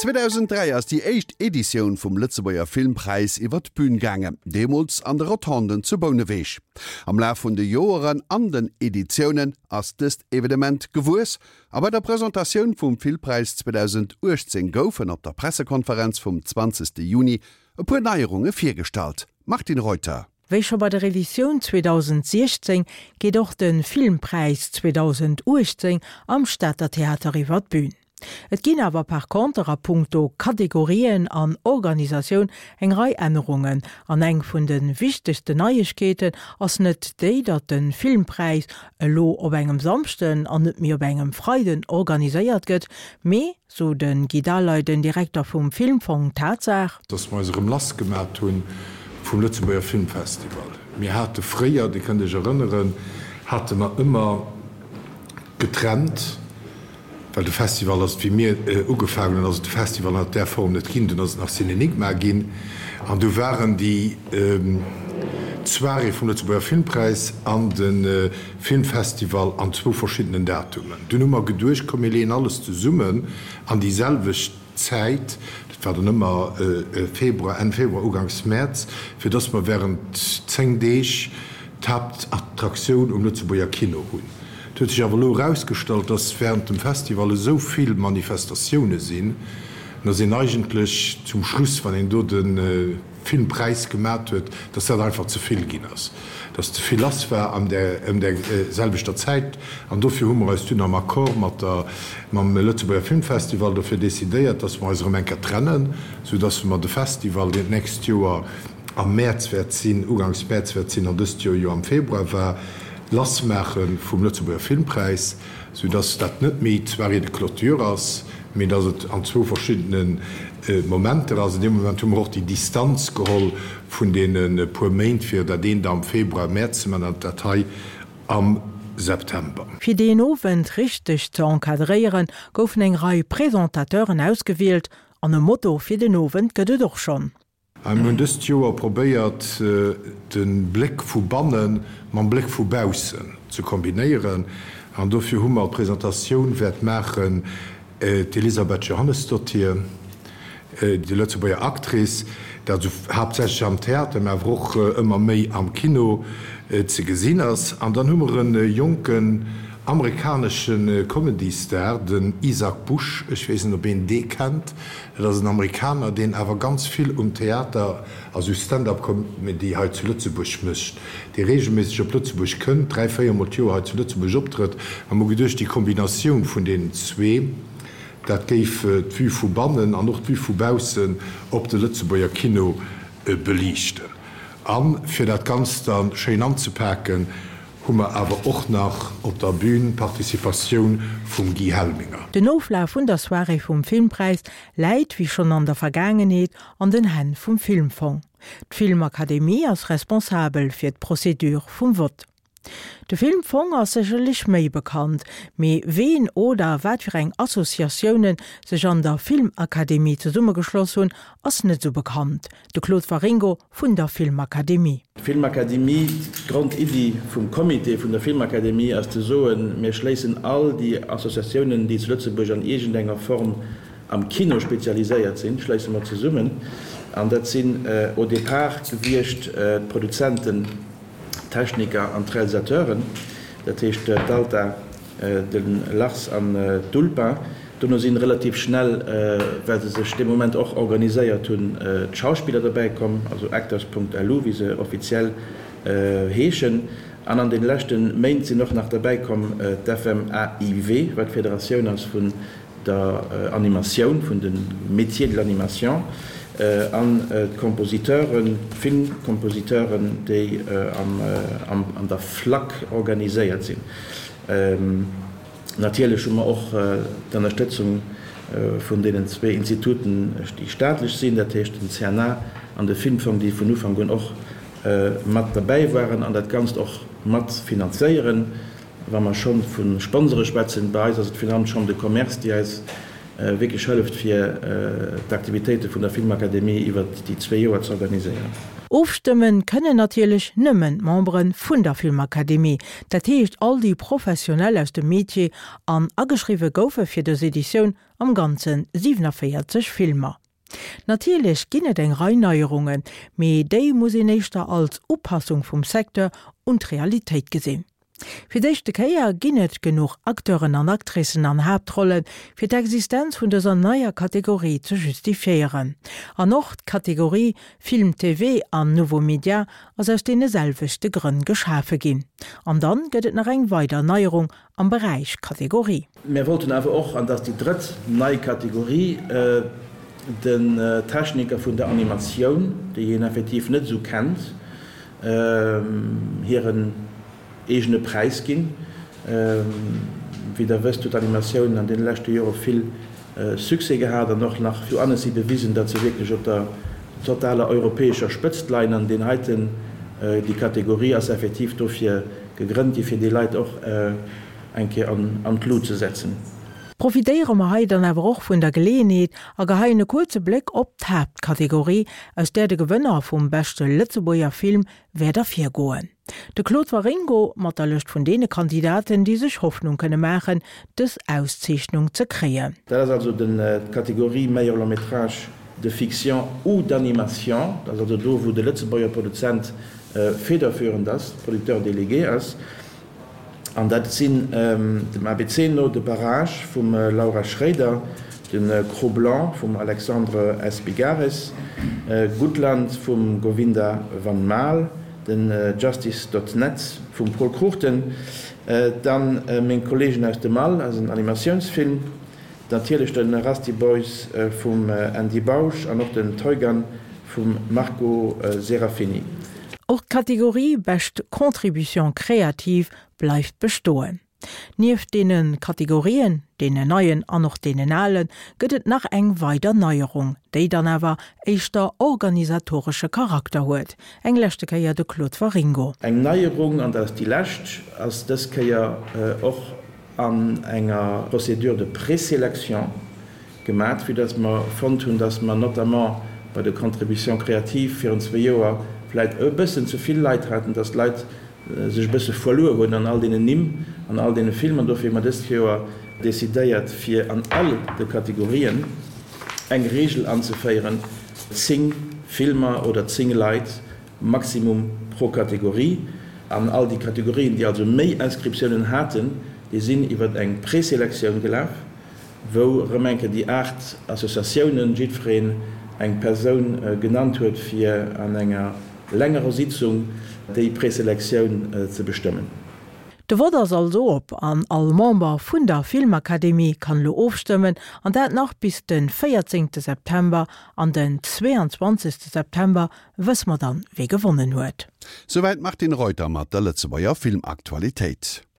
2003 ass déi éischt Editioun vum Lëtzebuerger Filmpräis iwwer d'Bün gaangen, deemools an de Rotonden zu Bouneweg. Am Laf vun de Joeren an den Editiounen ass dëst Evenement gewuess a bei der Presentatioun vum Filmpräis 2018 goufen op der Pressekonferenz vum 20 Juni e puer Neierunge virgestallt. Martine Reuter. Wéi scho bei der Editioun 2016 geet och de Filmpräis 2018 am Stater Theater iwwer d'Bün. Et ginn awer par conter a punkto Kategorien an Organisatioun eng Rei Ännerungen an eng vun de wichtegsten Neiegkeeten ass net déi, datt de Filmpräis elo op engem Samschden an net méi op engem Freiden organiséiert gëtt, mee, sou de Guy Daleiden, den Direkter vum Filmfong, d'Tatsaach. Dass mer eis erëm lass gemat hu vum Lëtzebuerger Filmfestival. Mir hate fréier, Dir kënnt Iech erënneren, hate mer ëmmer getrennt, well de Festival ass et, wéi mir ugefaangen hunn, ass et de Festival an där Form net ginn, dunn ass et nach Cinenigma ginn an du waren déi d'Soirée vum Lëtzebuerger Filmpräis an de Filmfestival an zwou verschiddenen Datumen. Dunn hu mer geduecht, komm mir leeën alles zesummen an déi selwecht Zäit, dat war dann ëmmer Februar, Enn Februar, Uganks Mäerz, fir dass mer während 10 Deeg d'Haaptattraktioun um Lëtzebuerger Kino hunn. Et huet sech awer elo erausgestallt, dass während dem Festival esou vill Manifestatioune sinn, dass een eigentlech zum Schluss, wann een do de Filmpräis gemat huet, dass dat einfach ze vill ginn ass, dass ze vill lass war an där ëm där selwechter Zäit. An dofir hu mer eis dunn am Accord mat der mam Lëtzebuerger Filmfestival dofir decidéiert, dass mer eis erëm eng Kéier trennen, soudass mer de Festival, deen d'nächst Joer am Mäerz wäert sinn, uganks Mäerz wäert sinn an dëst Joer jo am Februar war, lass maache vum Lëtzebuerger Filmpräis, soudass dat net méi d'Soirée de clôture ass, mee dass et an zwou verschiddene Momenter ass. An deem Moment hu mer och déi Distanz geholl vun deene puer Méint, fir dat eent am Februar, Mäerz ze maachen an dat hei am September. Fir deen Owend richteg ze encadréieren, goufen eng Rei Presentateuren ausgewielt an e Motto fir den Owend gëtt et och schonn. Mir hunn dëst Joer probéiert, de Bléck vu banne mam Bléck vu baussen ze kombinéieren an dofir hu mer d'Presentatioun wäert maachen d'Elisabeth Johannesdottir, déi Lëtzebuerger Actrice, dat esou haaptsächlech am Theater, mä awer och ëmmer méi am Kino ze gesinn ass. An dann hu mer e jonken amerikanesche Comedy-Star, den Isaac Bush, ech weess net, ob een dee kennt, Dat ass en Amerikaner, deen awer ganz vill um Theater a sou Stand-up-Comedy hei zu Lëtzebuerg mécht, dee reegelméisseg op Lëtzebuerg kënnt, 3, 4 mol d'Joer hei zu Lëtzebuerg optrëtt. A mer hu geduecht, déi Kombinatioun vun deenen zwee, dat géif d'Vue vu bannen an och d'Vue vu baussen op de Lëtzebuerger Kino beliichten. A fir dat Ganzt da schéin anzepaken, hu mer awer och nach op der Bühn d'Participatioun vum Guy Helminger. Den Oflaf vun der Soirée vum Filmpräis läit, wéi schonn an der Vergaangenheet, an den Hänn vum Filmfong. D'Filmakademie ass responsabel fir d'Procédure vum Vott. De Filmfong ass sécherlech méi bekannt, mee ween oder wat fir eng Associatiounen sech an der Filmakademie zesummegeschloss hunn, ass net sou bekannt. De Claude Waringo vun der Filmakademie. D'Filmakademie, D'Grondiddi vum Comité vun der Filmakademie ass ze soen, mir schléissen all déi Associatiounen, déi zu Lëtzebuerg an iergendenger Form am Kino spezialiséiert sinn, schléisse mer zesummen. An dat sinn au départ gewiescht d'Produzenten, d'Techniker an d'Realisateuren, dat heescht d'Alta, De Lars an d'Ulpa dono sinn relativ schnell, well se sech dee Moment och organiséiert hunn, d'Schauspiller dobäi komm, also Actors.lu wéi se offiziell heeschen. An an den leschte Méint sinn och nach derbäi komm d'FMAIW, wat d'Federatioun ass vun der Animatioun, vun de Métiers de l'animation, an d'Kompositeuren, d'Filmkompositeuren, déi an der FLAC organiséiert sinn. Natierlech hu mer och d'Ënnerstëtzung vun deenen zwee Instituten, déi staatlech sinn, dat heescht den CNA an de Filmfong, déi vun Ufank un och mat derbäi waren an dat Ganzt och mat finanzéieren. Wa mer scho vu Sponsore schwätzen, bei eis ass et virun allem d'Chambre de Commerce, déi eis wierklech hëlleft, fir d'Aktivitéite vun der Filmakademie iwwert déi zwee Joer ze organiséieren. Ofstëmmen kënnen natierlech nëmmen d'Membere vun der Filmakademie, dat heescht all déi Professionell aus dem Metier, an ageschriwwe goufe fir dës Editioun am Ganze 47 Filmer. Natierlech ginn et eng Rei Neierungen, mee déi muss een éischter als Upassung vum Secteur un d'Realitéit gesinn. Fir d'éischte Kéier ginn et genuch Acteuren an Actricen an Haaptrollen, fir d'Existenz vun dëser neier Kategorie ze justifiéieren. An och d'Kategorie Film TV an Nouveaux Médias ass aus deene selwechte Grënn geschafe ginn. An dann gëtt et nach eng weider Neierung am Beräich Kategorie. Mir wollten awer och, an dat ass déi drëtt nei Kategorie, den Techniker vun der Animatioun, déi een effektiv net esou kennt, hiren eegene Präis ginn. Wéi Der wësst, huet d'Animatioun an deene leschte Jore vill Succès gehat an och nach zu Annecy bewisen, datt se wierklech op der totaler europäescher Spëtzt leien. An deen heiten, déi Kategorie ass effektiv dofir gegrënnt gi fir déi Leit och eng Kéier an d'Lut ze setzen. Profitéiere mer hei dann awer och vun der Geleeënheet a geheien e kuerze Bléck op d'Haaptkategorie, aus där de Gewënner vum beschte Lëtzebuerger Film wäert ervirgoen. De Claude Waringo mat der Lëscht vun deene Kandidaten, déi sech Hoffnung kënne maachen, dës Auszeechnung ze kréien. Dat ass also d'Kategorie Meilleur long métrage de fiction ou d'animation. Dat ass also do, wou de Lëtzebuerger Produzent federführend ass, Producteur délégué ass. An dat sinn dem abc no de Barrage vum Laura Schréider, de Cro-Blanc vum Alexandre Espigares, Gutland vum Govinda Van Maal, den Justice dot net vum Pol Cruchten, dann Meng Kollegen aus dem All ass en Animatiounsfilm, natierlech de Rusty Boys vum Andy Bausch an och den Toygan vum Marco Serafini. Och d'Kategorie Bescht Contribution créative bleift bestoen. Nieft deene Kategorien, deenen neien an och deenen alen, gëtt et nach eng weider Neierung, déi dann awer éischter organisatoresche Charakter huet. Eng leschte Kéier de Claude Waringo. Eng Neierung, an dat ass déi lescht, ass dës Kéier och an enger Procédure de présélection gemat, vue dass mer fonnt hunn, dass mer notamment bei de Contributions créatives virun zwee Joer vläit e bëssen ze vill Leit haten, dass d'Leit sech e bësse verluer hunn an all deenen Nimm, an all deene Filmer. Dofir hu mer dëst Joer decidéiert, fir an all de Kategorien eng Regel anzeféieren, zéng Filmer oder zéng Leit Maximum pro Kategorie. An all déi Kategorien, déi also méi Inscriptiounen haten, déi sinn iwwer eng Preselektioun gelaf, wou erëm eng Kéier déi 8 Associatiounen, jiddwereen eng Persoun genannt huet, fir an enger längerer Sitzung déi Preselektioun ze bestëmmen. De Vott ass also op an all Member vun der Filmakademie kann elo ofstëmmen, an dat nach bis de 14 September. An den 22 September wësse mer dann, wee gewonnen huet. Souwäit d'Martine Reuter mat der Lëtzebuerger Filmaktualitéit.